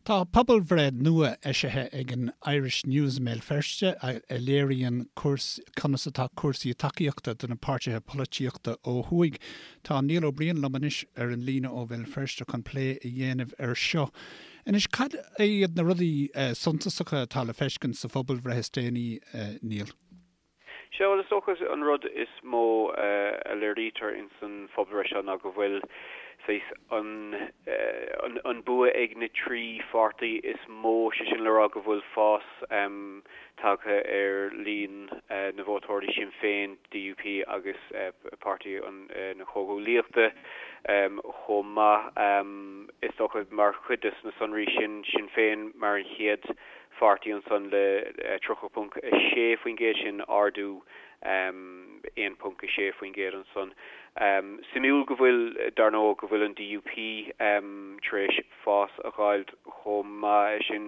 Tá pobalbhreith nua eisithe ag an Irish News i mBéal Feirste a léiríonn conas atá cúrsaí tacaíochta do na páirtithe polaitíochta ó thuaidh. Tá Niall Ó Briain liom anois ar an líne ó Bhéal Feirste chun plé a dhéanamh air seo. Anois, cad iad na rudaí suntasacha atá le feiscint sa phobalbhreith is déanaí, Niall? Sea, bhuel, is dócha an rud is mó a léirítear ins an phobalbhreith seo ná go bhfuil saghas an an bua ag na trí pháirtí is mó, sé sin le rá go bhfuil fás tagtha ar líon na vótóirí Sinn Féin, DUP agus Páirtí na Comhghuaillíochta chomh maith. Is dócha mar chuid de na sonraí sin, Sinn Féin mar an chéad pháirtí ansan le 30.6%, sin ardú 1.6% ansan. Suimiúil go bhfuil, dar ndóigh, go bhfuil an DUP tar éis fás a dh'fháilt chomh maith, sin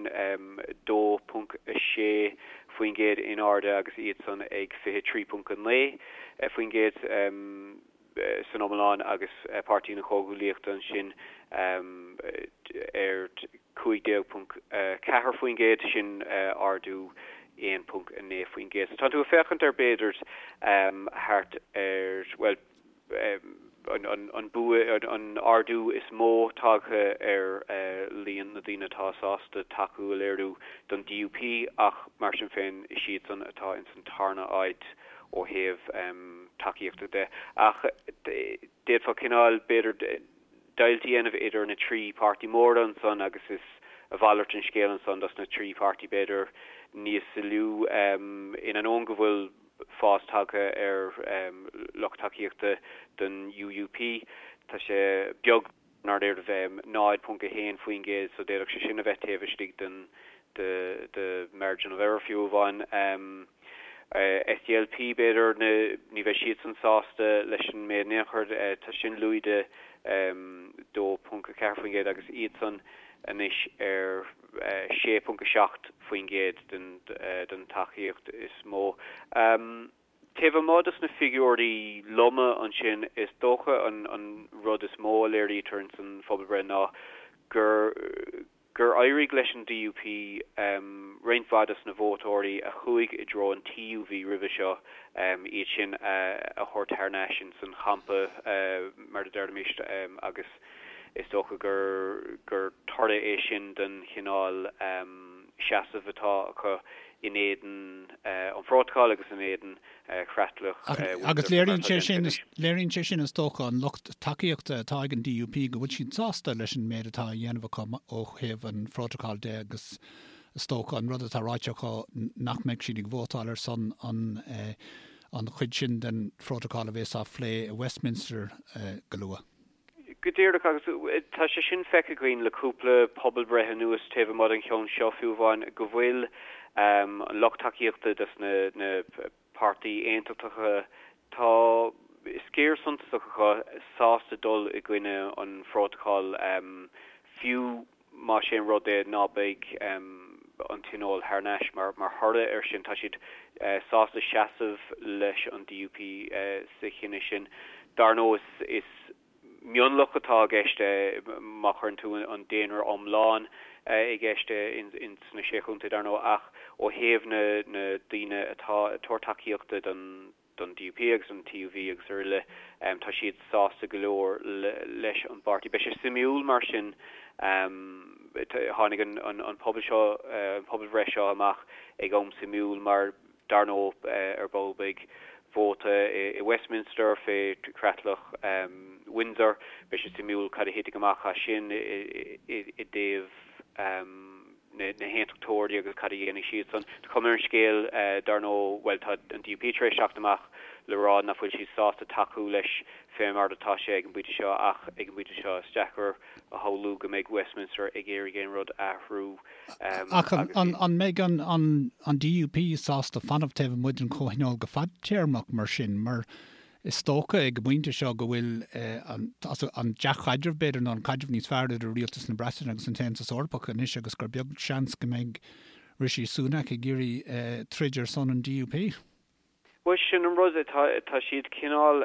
2.6% in airde agus iadsan ag 23.9%. san iomlán agus Páirtí na Comhghuaillíochta ansin ar 15.4%, sin ardú 1.9%. So tá tú ag féachaint ar b'fhéidir thart ar, bhuel, an bua, an ardú is mó tagtha ar líon na daoine atá sásta tacú a léiriú don DUP ach mar sin féin is iadsan atá ins an tarna áit ó thaobh tacaíochta de. Ach d'fhéadfá cineál, b'fhéidir, deighilt a dhéanamh idir na trí páirtí móra ansan agus is a mhalairt an scéal ansan dos na trí pháirtí b'fhéidir níos lú. In ainneoin go bhfuil fás tagtha ar lucht tacaíochta don UUP, tá sé beag i ndáiríre 0.1% so d'fhéadfadh sé sin a bheith taobh istigh den de margin of error fiú amháin. SDLP b'fhéidir, ní bheidh siadsan sásta leis an méid in aon chor, tá sin lúide 2.4% agus iadsan anois ar 6.7% den tacaíocht is mó. Taobh amuigh dos na figiúirí loma ansin, is dócha an rud is mó a léirítear ins an phobalbhreith ná gur gur éirigh leis an DUP roinnt mhaith dos na vótóirí a chuaigh i dtreo an TUV roimhe seo, iad sin a thabhairt thar n-ais ins an champa, mar a déarfaimis, agus is dócha gur gur toradh é sin den chineál seasamh atá acu in éadan an Phrótacail agus in éadan chreatlach Agus léiríonn sé sin, léiríonn sé sin is dócha an lucht tacaíochta atá ag an DUP go bhfuil siad sásta leis an méid atá á dhéanamh acu ó thaobh an Phrótacail de agus is dócha an rud atá ráite acu nach mbeidh siad ag vótáil ar son an an chuid sin den Phrótacal a bheas á phlé i Westminster go luath. Go díreach, agus tá sé sin feicthe againn le cúpla pobalbhreith anuas, taobh amuigh den cheann seo fiú amháin, go bhfuil an lucht tacaíochta dos na páirtí aontachtacha, tá sciar suntasach acu sásta dul i gcoinne an phrótacail, fiú más é an rud é ná beidh an Tionól thar n-ais mar thoradh air sin. Tá siad sásta seasamh leis an DUP sa chinneadh sin. Dar ndóigh, is mionlach atá i gceist má chuireann tú an daonra iomlán i gceist ins na Sé Chontae, dar ndóigh, ach ó thaobh na daoine atá ag tabhairt tacaíochta don don DUP agus an TUV agus araile, tá siad sásta go leor leis an bpáirtí. Beidh sé suimiúil mar sin, tháinig an pobal seo, an pobalbhreith seo amach ag am suimiúil mar dar ndóigh ar ball beidh vóta i Westminster fé chreatlach Windsor, beidh sé suimiúil cad a thitfidh amach as sin i dtaobh na haontachtóirí agus cad a dhéanfaidh siadsan. Tá cuma ar an scéal, dar ndóigh, bhuel, tá an DUP tar éis teacht amach le rá nach bhfuil siad sásta tacú leis fé mar atá sé ag an bpointe seo ach ag an bpointe seo is deacair a shamhlú go mbeidh Westminster ag iarraidh aon rud a athrú Ach an mbeidh an DUP sásta fanacht taobh amuigh den Chomhthionól go fadtéarmach mar sin? Mar Is dócha ag an bpointe seo go bhfuil an dea-chaidreamh, b'fhéidir, nó an caidreamh níos fearr idir Rialtas na Breataine agus an tAontas Eorpach anois agus gur beag seans go mbeidh Rishi Sunak ag iarraidh troid ar son an DUP. Bhuel, sin an rud, tá siad cineál,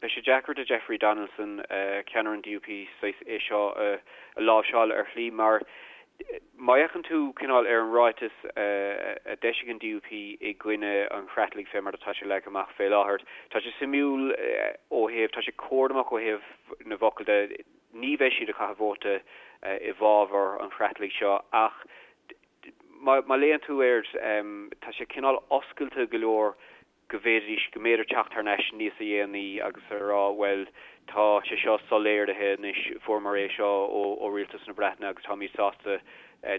beidh sé deacair do Jeffrey Donaldson, ceannaire an DUP, saghas é seo a láimhseáil ar shlí mar. Má fhéachann tú cineál ar an ráiteas a d'eisigh an DUP i gcoinne an chreatlaigh fé mar atá sé leagtha amach fé láthair, tá sé suimiúil ó thaobh, tá sé cúramach ó thaobh na bhfocal de, ní bheidh siad ag caitheamh vóta i bhfabhar an chreatlaigh seo ach má léann tú air, tá sé cineál oscailte go leor go bhféadfaidís, go mb'fhéidir teacht thar n-ais níos a dhéanaí agus a rá, bhuel, tá sé seo soiléirithe anois, fuaireamar é seo ó Rialtas na Breataine agus táimid sásta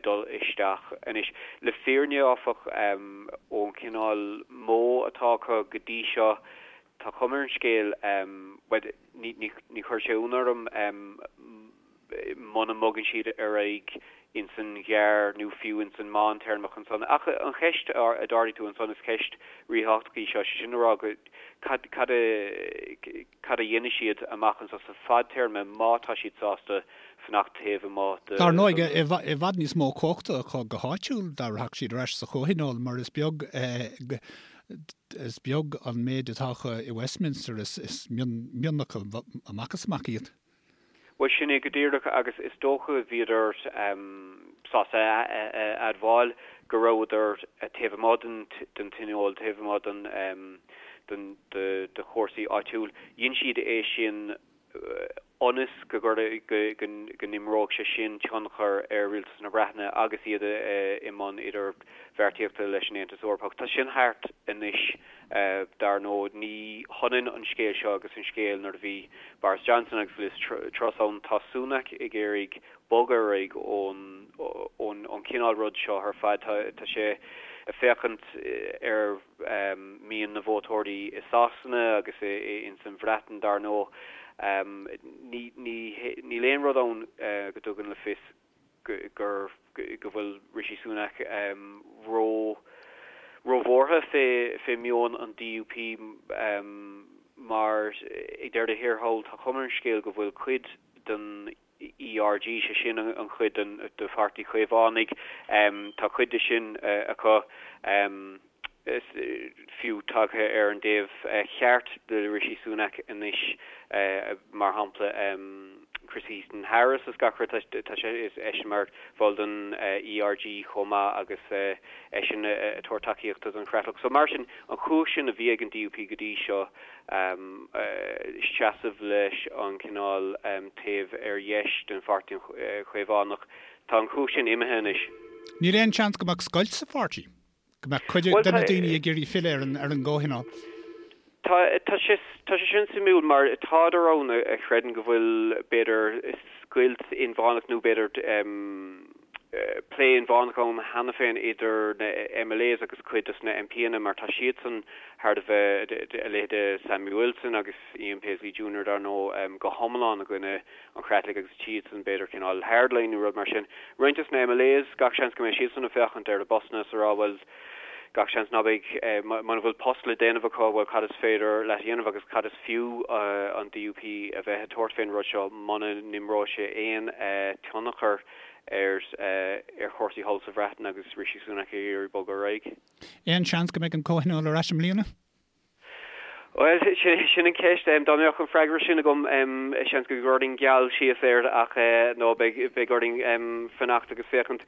dul isteach anois. Le fírinne, áfach, ón chineál modh atá acu go dtí seo, tá cuma ar an scéal, bhuel, ní, ní, ní chuirfeadh sé ionadh orm, muna mbogann siad ar aghaidh ins an ghearr nó fiú ins an meántéarma ansan. Ach an cheist a d'ardaigh tú ansan, is ceist ríthábhachtach í seo, sé sin a rá go cad cad a cad a dhéanfaidh siad amach anso sa fadtéarma má tá siad sásta fanacht taobh amuigh de Dar ndóigh, i bhfad níos mó cumhachta acu go háitiúil dá rachadh siad ar ais sa Chomhthionól mar is beag is beag an méid atá acu i Westminster, is mionlach amach is amach iad. Bhuel, sin é go díreach, agus is dócha bhíodar sásta a admháil go rabhadar taobh amuigh den tionól, taobh amuigh den de chúrsaí áitiúil. Dhein siad é sin ionas go go n-imreodh sé sin tionchar ar Rialtas na Breataine agus iad i mbun idirbheartaíochta leis an Aontas Eorpach. Tá sin thart anois. Dar ndóigh, ní hionann an scéal seo agus an scéal nuair a bhí Boris Johnson agus Liz Truss ann. Tá Sunak ag iarraidh bogadh ar aghaidh ón chineál rud seo ar fad. Tá sé ag féachaint ar mhian na vótóirí i Sasana agus ins an Bhreatain, dar ndóigh. Níl aon rud ann go dtugann le fios gur go bhfuil Rishi Sunak ró róbhuartha fé fé meon an DUP mar ag deireadh thiar thall tá cuma ar an scéal go bhfuil cuid den ERG, sé sin an chuid den de Pháirtí Chaomhánaigh, tá cuid de sin acu. fiú tagtha ar an dtaobh cheart de Rishi Sunak anois, mar shampla Chris Heaton Harris is gach rud, tá sé, is eisean mar bhall den ERG chomh maith agus eisean ag tabhairt tacaíochta don Chreatlach. So mar sin, an chumhacht sin a bhí ag an DUP go dtí seo, seasamh leis an cineál taobh ar dheis den Pháirtí Chaomhánach, tá an chumhacht sin imithe anois. Níl aon seans go mbeadh scoilt sa pháirtí? Go mbeadh cuid de na daoine ag iarraidh filleadh ar an gComhthionól. Tá, tá sé, tá sé sin suimiúil mar tádar ann a chreideann go bhfuil b'fhéidir scoilt inmheánach nó b'fhéidir plé inmheánach ann cheana féin idir na MLAs agus cuid dos na MPanna mar tá siadsan thar a bheith, a leithéide Sammy Wilson agus Ian Paisley Junior dar ndóigh, go hiomlán i gcoinne an Chreatlaigh agus siadsan b'fhéidir cineál hardline nó rud mar sin. Roinnt dos na MLAs, gach seans go mbeidh siadsan ag féachaint ar a bpostanna is a rá bhuel gach seans ná beidh, muna bhfuil post le déanamh acu, bhuel cad is féidir leat a dhéanamh agus cad is fiú an DUP a bheith ag tabhairt fén rud seo muna n-imreoidh sé aon tionchar ar ar chúrsaí thall sa Bhreatain agus Rishi Sunak ag iarraidh bogadh ar aghaidh. Aon seans go mbeidh an Comhthionól ar ais i mbliana? Bhuel, sin an cheist. Dá mbeadh an freagra sin agam, seans go gcuirfinn geall síos air ach nó beidh orainn fanacht agus féachaint.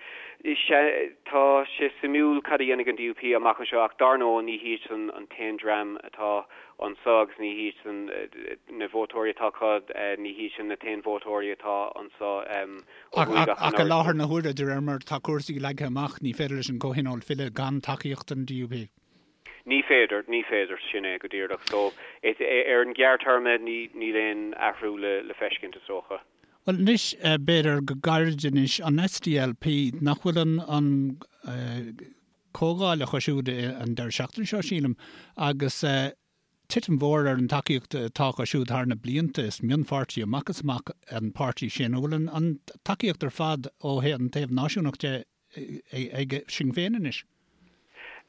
Tá sé suimiúil cad a dhéanfaidh an DUP amach anseo ach dar ndóigh ní hiadsan an t-aon dream atá anseo agus ní hiadsan na vótóirí atá acu, ní hiadsan na t-aon vótóirí atá anseo ó thuaidh ach an Ach i láthair na huaire, de réir mar atá cúrsaí leagtha amach, ní féidir leis an gComhthionól filleadh gan tacaíocht an DUP. Ní féidir, ní féidir, sin é go díreach. So, ar an ghearrthéarma, níl aon athrú le feiscint, is dócha. Bhuel, anois, b'fhéidir go gairid anois, an SDLP, nach bhfuil an, an comhdháil acu siúd an deireadh seachtaine seo, sílim, agus titim mhór ar an tacaíocht atá acu siúd thar na blianta, is mionpháirtí amach is amach an páirtí sin. An bhfuil an, an tacaíocht ar fad ó an taobh náisiúnach de ag Sinn Féin anois?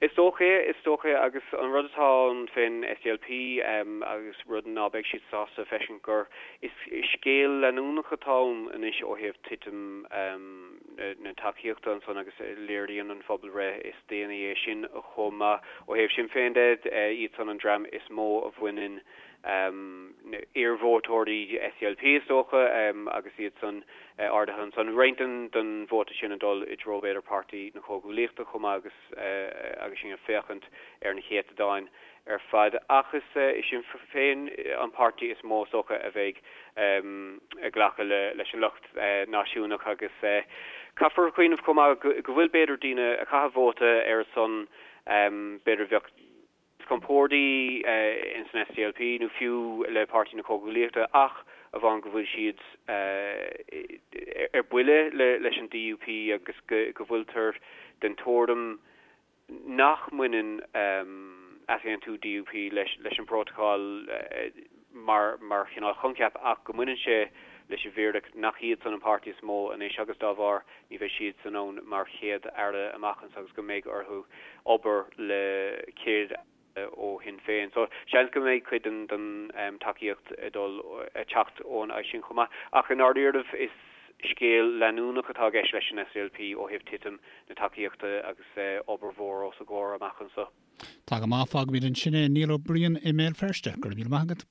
Is dócha é, is dócha é agus an rud atá ann fén SDLP agus rud ná beidh siad sásta a feiscint gur is scéal leanúnach atá ann anois ó thaobh titim na tacaíochta ansan agus léiríonn an phobalbhreith is déanaí é sin chomh maith. Ó thaobh Sinn Féin de, iadsan an dream is mó a bhaineann. Iar-vótóirí SDLP is dócha agus iad san ardaithe ansan. Roinnt den vóta sin ag dul i dtreo b'fhéidir Páirtí na Comhghuaillíochta chomh maith agus agus sinn ag féachaint ar na céatadáin ar fad. Ach is é Sinn Féin an páirtí is mó is dócha a bheidh ag glacadh leis an lucht náisiúnach agus caithfear cuimhneamh chomh maith go bhfuil b'fhéidir daoine a chaitheann vóta ar a son b'fhéidir bheadh níos compordaí ins an SDLP nó fiú le Páirtí na Comhghuaillíochta ach amháin go bhfuil siad ar buile leis an DUP agus go bhfuiltear den tuairim nach mbaineann easaontú DUP leis an bprótacal mar chineál choincheap ach go mbaineann sé leis an bhfíric nach iadsan an páirtí is mó anois agus dá bharr ní bheidh siadsan ann mar Chéad Aire amach anseo agus go mbeidh orthu obair le Céad Aire ó Shinn Féin. So seans go mbeidh cuid den tacaíocht ag dul ag teacht ón áit sin chomh maith. Ach i ndáiríribh is scéal leanúnach atá i gceist leis an SDLP ó thaobh titim na tacaíochta agus obair mhór os a gcomhair amach anseo. Tá go maith, fágfaimid ansin é. Niall Ó Briain i mBéal Feirste, go raibh míle maith agat.